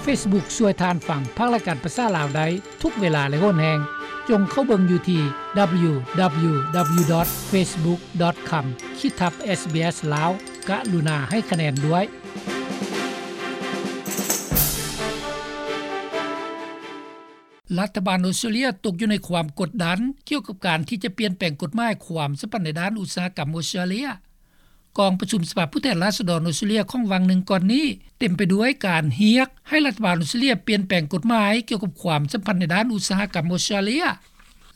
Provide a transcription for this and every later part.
Facebook ຊ່ວຍທ່ານຟັງພັກລາຍການພາສາລາວໄດ້ທຸກເວລາ ແລະ ໂຫນແຮງ. ຈົ່ງເຂົ້າເບິ່ງຢູ່ທີ່ www.facebook.com ຂີດທັບ SBS ລາວ. ກະລຸນາໃຫ້ຄະແນນດ້ວຍ. ລັດຖະບານອົດສະຕຣາເລຍຕົກຢູ່ໃນຄວາມກົດດັນ ກ່ຽວກັບການທີ່ຈະປ່ຽນແປງກົດໝາຍຄວາມສຳພັນໃນດ້ານອຸດສາຫະກຳອົດສະຕຣາເລຍ. ກອງປະຊຸມສະພາຜູ້ແທນລາຊະດອນອົດສະຕຣາເລຍຂອງຫວ່າງໜຶ່ງກ່ອນນີ້ ເຕັມໄປດ້ວຍການຮຽກໃຫ້ລັດຖະບານອົດສະຕຣາເລຍປ່ຽນແປງກົດໝາຍກ່ຽວກັບຄວາມສຳພັນໃນດ້ານອຸດສາຫະກຳອົດສະຕຣາເລຍ.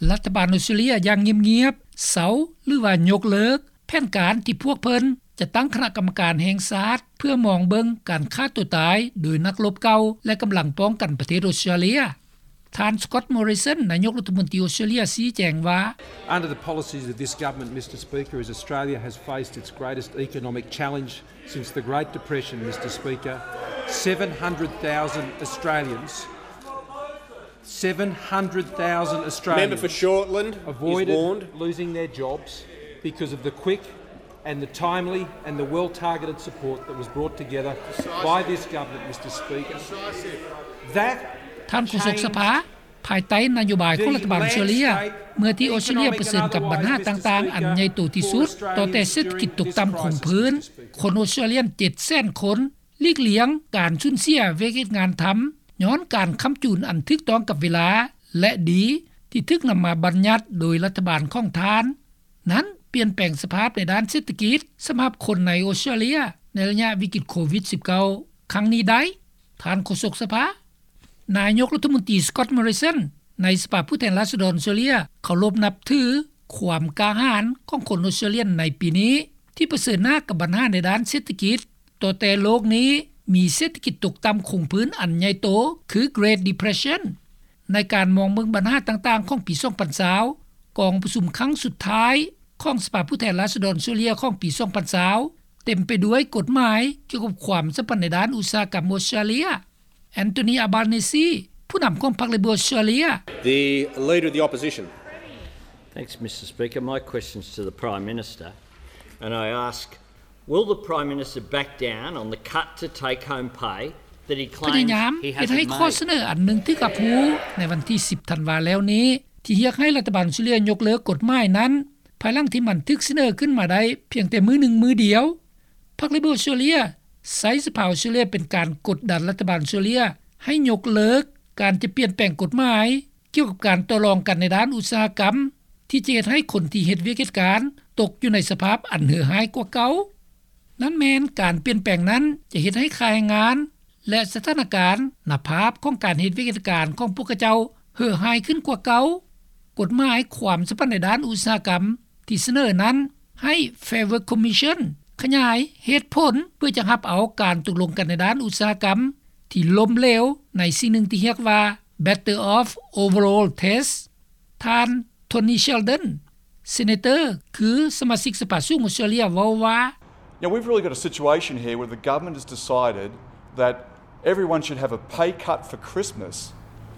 ລັດຖະບານອົດສະຕຣາເລຍຢ່າງງຽບໆ ເຊົາ ຫຼືວ່າຍົກເລີກແຜນການທີ່ພວກເພິ່ນຈະຕັ້ງຄະນະກຳມະການແຫ່ງຊາດ ເພື່ອມອງເບິ່ງການຂ້າຕົວຕາຍໂດຍນັກລົບເກົ່າ ແລະ ກຳລັງປ້ອງກັນປະເທດອົດສະຕຣາເລຍ. ທ່ານ Scott Morrison ນາຍົກລັດຖະມົນຕີອົດສະຕຣາເລຍຊີ້ແຈງວ່າ Under the policies of this government, Mister Speaker, as Australia has faced its greatest economic challenge since the Great Depression, Mister Speaker, seven hundred thousand Australians, seven hundred thousand Australians Member for Shortland is avoided warned. Losing their jobs because of the quick and the timely and the well-targeted support that was brought together by this government, Mister Speaker. That ທ່ານໂຄສົກສະພາ, ພາຍໃຕ້ນະໂຍບາຍຂອງລັດຖະບານອົດສະຕຣາເລຍ, ເມື່ອທີ່ອົດສະຕຣາເລຍປະເຊີນກັບບັນຫາຕ່າງໆອັນໃຫຍ່ໂຕທີ່ສຸດ, ຕໍ່ແຕ່ເສດຖະກິດຕົກຕ່ຳຄົງພື້ນ, ຄົນອົດສະຕຣາເລຍເຈັດແສນຄົນ ຫຼີກລ່ຽງການສູນເສຍວຽກເຮັດງານທຳ ຍ້ອນການຄ້ຳຈູນອັນຖືກຕ້ອງກັບເວລາ ແລະ ດີ ທີ່ຖືກນຳມາບັນຍັດໂດຍລັດຖະບານຂອງທ່ານ. ນັ້ນປ່ຽນແປງສະພາບໃນດ້ານເສດຖະກິດສຳລັບຄົນໃນອົດສະຕຣາເລຍໃນໄລຍະວິກິດໂຄວິດສິບເກົ້າ ຄັ້ງນີ້ໄດ້, ທ່ານໂຄສົກສະພາ. ນາຍົກລັດຖະມົນຕີ Scott Morrison ໃນສະພາຜູ້ແທນລາຊະດອນອົດສະຕຣາເລຍເຄົາລົບນັບຖືຄວາມກ້າຫານຂອງຄົນອົດສະຕຣາເລຍໃນປີນີ້ ທີ່ປະເຊີນໜ້າກັບບັນຫາໃນດ້ານເສດຖະກິດ, ຕໍ່ແຕ່ໂລກນີ້ມີເສດຖະກິດຕົກຕ່ຳຄົງພື້ນອັນໃຫຍ່ໂຕ ຄື Great Depression. ໃນການມອງເບິ່ງບັນຫາຕ່າງໆຂອງປີສອງພັນຊາວ ກອງປະຊຸມຄັ້ງສຸດທ້າຍຂອງສະພາຜູ້ແທນລາຊະດອນອົດສະຕຣາເລຍຂອງປີສອງພັນຊາວ ເຕັມໄປດ້ວຍກົດໝາຍກ່ຽວກັບຄວາມສຳພັນໃນດ້ານອຸດສາຫະກຳອົດສະຕຣາເລຍ. Anthony Albanese ຜູ້ນຳຂອງພັກ Labor ອົດສະຕຣາເລຍ. The Leader of the Opposition. Thanks, Mister Speaker. My question's to the Prime Minister, and I ask, will the Prime Minister back down on the cut to take-home pay that he claims he has made? ພະຍາຍາມເຮັດໃຫ້ຂໍ້ສະເໜີອັນໜຶ່ງຖືກຮັບຮູ້ໃນວັນທີສິບທັນວາແລ້ວນີ້ ທີ່ຮຽກໃຫ້ລັດຖະບານອົດສະຕຣາເລຍຍົກເລີກກົດໝາຍນັ້ນ ພາຍຫຼັງທີ່ມັນຖືກສະເໜີຂຶ້ນມາໄດ້ພຽງແຕ່ມື້ໜຶ່ງມື້ດຽວ. ພັກ Labor ອົດສະຕຣາເລຍໃຊ້ສະພາອົດສະຕຣາເລຍເປັນການກົດດັນລັດຖະບານອົດສະຕຣາເລຍໃຫ້ຍົກເລີກການຈະປ່ຽນແປງກົດໝາຍ ກ່ຽວກັບການຕໍ່ລອງກັນໃນດ້ານອຸດສາຫະກຳ ທີ່ຈະເຮັດໃຫ້ຄົນທີ່ເຮັດວຽກເຮັດການຕົກຢູ່ໃນສະພາບອັນເຫືອຮ້າຍກວ່າເກົ່າ. ນັ້ນແມ່ນການປ່ຽນແປງນັ້ນຈະເຮັດໃຫ້ຄ່າແຮງງານ ແລະ ສະຖານະການໜ້າພາບຂອງການເຮັດວຽກເຮັດການຂອງພວກເຂົາເຈົ້າເຫືອຮ້າຍຂຶ້ນກວ່າເກົ່າ. ກົດໝາຍຄວາມສຳພັນໃນດ້ານອຸດສາຫະກຳທີ່ສະເໜີນັ້ນ ໃຫ້ Fair Work Commission ຂະຫຍາຍເຫດຜົນເພື່ອຈະຮັບເອົາການຕົກລົງກັນໃນດ້ານອຸດສາຫະກຳທີ່ລົ້ມເຫຼວໃນສິ່ງໜຶ່ງທີ່ຮຽກວ່າ Better Off Overall Test. ທ່ານ Tony Sheldon, Senator ຄືສະມາຊິກສະພາສູງອົດສະຕຣາເລຍ ເວົ້າວ່າ Now, we've really got a situation here where the government has decided that everyone should have a pay cut for Christmas.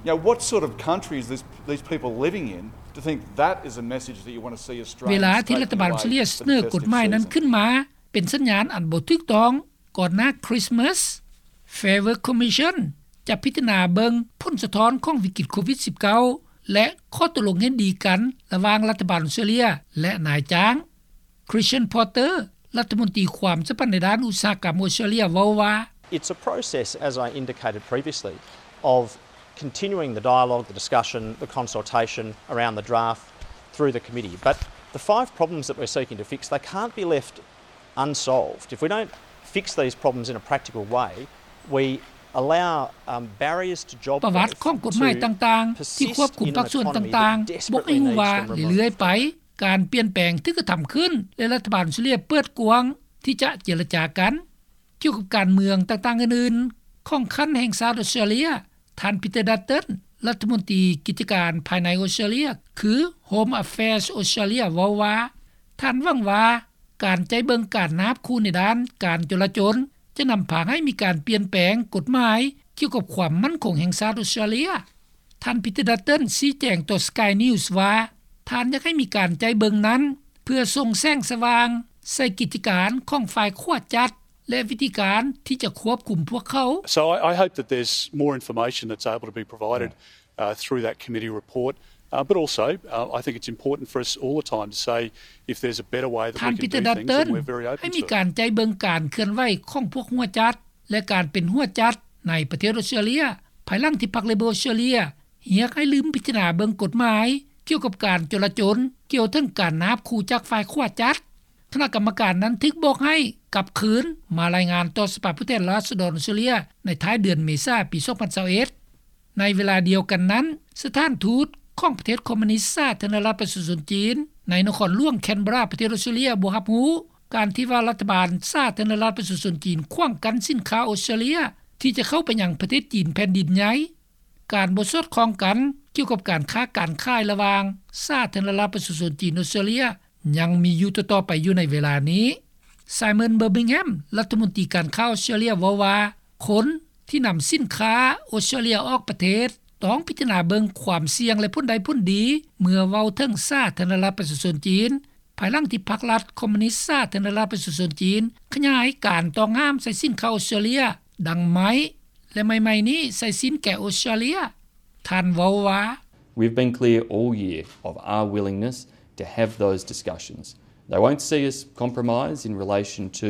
You know, what sort of country is this, these people living in to think that is a message that you want to see Australians take away for the festive season? ເວລາທີ່ລັດຖະບານອົດສະຕຣາເລຍສະເໜີກົດໝາຍນັ້ນຂຶ້ນມາເປັນສັນຍານອັນບໍ່ຖືກຕ້ອງ ກ່ອນໜ້າ Christmas, Fair Work Commission ຈະພິຈາລະນາເບິ່ງຜົນສະທ້ອນຂອງວິກິດໂຄວິດສິບເກົ້າ ແລະ ຂໍ້ຕົກລົງເຫັນດີກັນລະຫວ່າງລັດຖະບານອົດສະຕຣາເລຍ ແລະ ນາຍຈ້າງ. Christian Porter ລັດຖະມົນຕີຄວາມສຳພັນໃນດ້ານອຸດສາຫະກຳອົດສະຕຣາເລຍ ເວົ້າວ່າ It's a process, as I indicated previously, of continuing the dialogue, the discussion, the consultation around the draft through the committee. But the five problems that we're seeking to fix, they can't be left unsolved. If we don't fix these problems in a practical way, we allow, um, barriers to job growth to persist in an economy that desperately needs government support. ປະຫວັດຂອງກົດໝາຍຕ່າງໆທີ່ຄວບຄຸມພາກສ່ວນຕ່າງໆ ບອກໃຫ້ຮູ້ວ່າເລື້ອຍໆໄປ ການປ່ຽນແປງຖືກກະທຳຂຶ້ນ ແລະ ລັດຖະບານອົດສະຕຣາເລຍເປີດກວ້າງທີ່ຈະເຈລະຈາກັນ. ກ່ຽວກັບການເມືອງຕ່າງໆອື່ນໆຂອງຂັ້ນແຫ່ງຊາດອົດສະຕຣາເລຍ, ທ່ານ Peter Dutton ລັດຖະມົນຕີກິດຈະການພາຍໃນອົດສະຕຣາເລຍ ຄື Home Affairs Australia ເວົ້າວ່າ ທ່ານຫວັງວ່າການໃຈເບິ່ງການນາບຂູ່ໃນດ້ານການຈົລາຈົນ ຈະນຳພາໃຫ້ມີການປ່ຽນແປງກົດໝາຍກ່ຽວກັບຄວາມໝັ້ນຄົງແຫ່ງຊາດອົດສະຕຣາເລຍ. ທ່ານ Peter Dutton ຊີ້ແຈງຕໍ່ Sky News ວ່າ ທ່ານຢາກໃຫ້ມີການໃຈເບິ່ງນັ້ນ ເພື່ອສົ່ງແສງສະຫວ່າງໃສ່ກິດຈະການຂອງຝ່າຍຂວາຈັດ ແລະ ວິທີການທີ່ຈະຄວບຄຸມພວກເຂົາ. So I, I hope that there's more information that's able to be provided, uh, through that committee report. Uh, but also, uh, I think it's important for us all the time to say if there's a better way that we can do things, then we're very open to it. ທ່ານ Peter Dutton ໃຫ້ມີການໃຈເບິ່ງການເຄື່ອນໄຫວຂອງພວກຫົວຈັດ ແລະ ການເປັນຫົວຈັດໃນປະເທດອອສເຕຣເລຍ ພາຍຫຼັງທີ່ພັກ Labor ອອສເຕຣເລຍ ຮຽກໃຫ້ລືມພິຈາລະນາເບິ່ງກົດໝາຍກ່ຽວກັບການຈົລາຈົນ ກ່ຽວເຖິງການນາບຂູ່ຈາກຝ່າຍຂວາຈັດ. ຄະນະກຳມະການນັ້ນຖືກບອກໃຫ້ກັບຄືນມາລາຍງານຕໍ່ສະພາຜູ້ແທນລາຊະດອນອອສເຕຣເລຍໃນທ້າຍເດືອນເມສາປີສອງພັນຊາວເອັດ. ໃນເວລາດຽວກັນນັ້ນ, ສະຖານທູດຂອງປະເທດຄອມມູນິດສາທາລະນະລັດປະຊາຊົນຈີນ ໃນນະຄອນຫຼວງແຄນເບຣາ ປະເທດອອສເຕຣເລຍ ບໍ່ຮັບຮູ້ການທີ່ວ່າລັດຖະບານສາທາລະນະລັດປະຊາຊົນຈີນ ຂວາງກັ້ນສິນຄ້າອອສເຕຣເລຍທີ່ຈະເຂົ້າໄປຍັງປະເທດຈີນແຜ່ນດິນໃຫຍ່. ການບໍ່ສອດຄ່ອງກັນກ່ຽວກັບການຄ້າການຂາຍລະຫວ່າງສາທາລະນະລັດປະຊາຊົນຈີນ-ອອສເຕຣເລຍ ຍັງມີຢູ່ຕໍ່ໆໄປຢູ່ໃນເວລານີ້. Simon Birmingham ລັດຖະມົນຕີການຄ້າອອສເຕຣເລຍເວົ້າວ່າ ຄົນທີ່ນຳສິນຄ້າອອສເຕຣເລຍອອກປະເທດ ຕ້ອງພິຈາລະນາເບິ່ງຄວາມສ່ຽງ ແລະ ຜົນໄດ້ຜົນດີ ເມື່ອເວົ້າເຖິງສາທາລະນະລັດປະຊາຊົນຈີນ ພາຍຫຼັງທີ່ພັກລັດຄອມມູນິດສາທາລະນະລັດປະຊາຊົນຈີນ ຂະຫຍາຍການຕ້ອງຫ້າມໃສ່ສິນຄ້າອອສເຕຣເລຍ ດັ່ງໄມ້ ແລະ ໃໝ່ໆນີ້ໃສ່ສິນແກະອອສເຕຣເລຍ. ທ່ານເວົ້າວ່າ We've been clear all year of our willingness to have those discussions. They won't see us compromise in relation to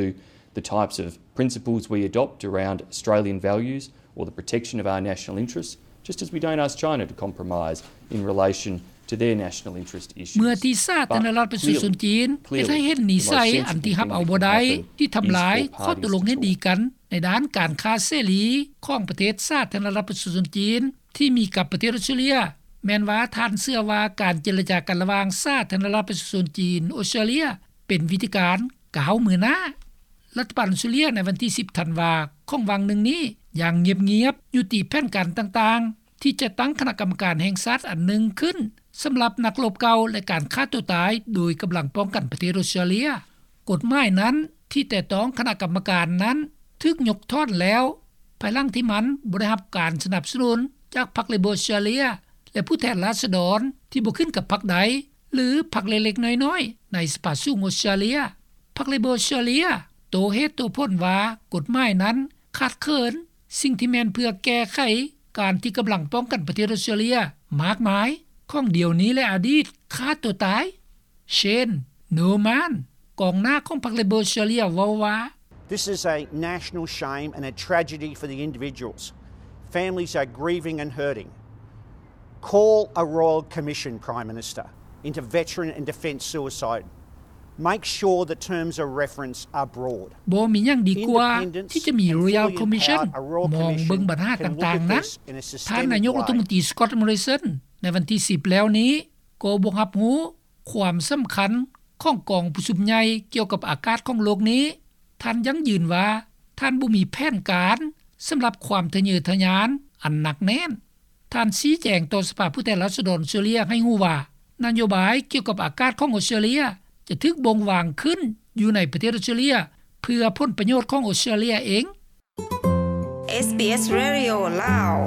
the types of principles we adopt around Australian values or the protection of our national interests, just as we don't ask China to compromise in relation to their national interest issues. ເມື່ອທີ່ສາທາລະນະລັດປະຊາຊົນຈີນເຮັດໃຫ້ເຫັນນິໄສອັນທີ່ຮັບເອົາບໍ່ໄດ້ ທີ່ທຳລາຍຂໍ້ຕົກລົງເຫັນດີກັນໃນດ້ານການຄ້າເສລີຂອງປະເທດສາທາລະນະລັດປະຊາຊົນຈີນ ທີ່ມີກັບປະເທດອອສເຕຣເລຍ ແມ່ນວ່າທ່ານເຊື່ອວ່າການເຈລະຈາກັນລະຫວ່າງສາທາລະນະລັດປະຊາຊົນຈີນ-ອອສເຕຣເລຍ ເປັນວິທີການກ້າວມືໜ້າ. ລັດຖະບານອອສເຕຣເລຍໃນວັນທີສິບທັນວາຂອງຫວ່າງໜຶ່ງນີ້ ຢ່າງງຽບໆ ຍຸຕິແຜນການຕ່າງໆ ທີ່ຈະຕັ້ງຄະນະກຳມະການແຫ່ງຊາດອັນໜຶ່ງຂຶ້ນ ສຳລັບນັກລົບເກົ່າ ແລະ ການຂ້າຕົວຕາຍໂດຍກຳລັງປ້ອງກັນປະເທດອອສເຕຣເລຍ. ກົດໝາຍນັ້ນທີ່ແຕະຕ້ອງຄະນະກຳມະການນັ້ນ ຖືກຍົກຖອນແລ້ວ ພາຍຫຼັງທີ່ມັນບໍ່ໄດ້ຮັບການສະໜັບສະໜູນຈາກພັກ Labor ອອສເຕຣເລຍ ແລະ ຜູ້ແທນລາຊະດອນທີ່ບໍ່ຂຶ້ນກັບພັກໃດ ຫຼື ພັກເລັກໆນ້ອຍໆໃນສະພາສູງອອສເຕຣເລຍ. ພັກ Labor ອອສເຕຣເລຍໂຕ້ເຫດໂຕ້ຜົນວ່າ ກົດໝາຍນັ້ນຂາດເຂີນສິ່ງທີ່ແມ່ນເພື່ອແກ້ໄຂການທີ່ກຳລັງປ້ອງກັນປະເທດອອສເຕຣເລຍມາກມາຍ ຂອງດຽວນີ້ ແລະ ອະດີດ ຂ້າຕົວຕາຍ. Shane Norman ກອງໜ້າຂອງພັກ Labor ເວົ້າວ່າ This is a national shame and a tragedy for the individuals. Families are grieving and hurting. Call a royal commission, Prime Minister, into veteran and defence suicide. Make sure the terms of reference are broad. ບໍ່ມີຫຍັງດີກວ່າທີ່ຈະມີ Royal Commission ມອງເບິ່ງບັນຫາຕ່າງໆນັ້ນ. ທ່ານນາຍົກລັດຖະມົນຕີ Scott Morrison ໃນວັນທີສິບແລ້ວນີ້ ກໍບໍ່ຮັບຮູ້ຄວາມສຳຄັນຂອງກອງປະຊຸມໃຫຍ່ກ່ຽວກັບອາກາດຂອງໂລກນີ້. ທ່ານຢັ້ງຢືນວ່າ ທ່ານບໍ່ມີແຜນການສຳລັບຄວາມທະເຍີທະຍານອັນໜັກແໜ້ນ. ທ່ານຊີ້ແຈງຕໍ່ສະພາຜູ້ແທນລາຊະດອນອອສເຕຣເລຍໃຫ້ຮູ້ວ່າ ນະໂຍບາຍກ່ຽວກັບອາກາດຂອງອອສເຕຣເລຍຈະຖືກບົ່ງວາງຂຶ້ນຢູ່ໃນປະເທດອອສເຕຣເລຍ ເພື່ອຜົນປະໂຫຍດຂອງອອສເຕຣເລຍເອງ. ເອສບີເອສ ເຣດິໂອ ລາວ.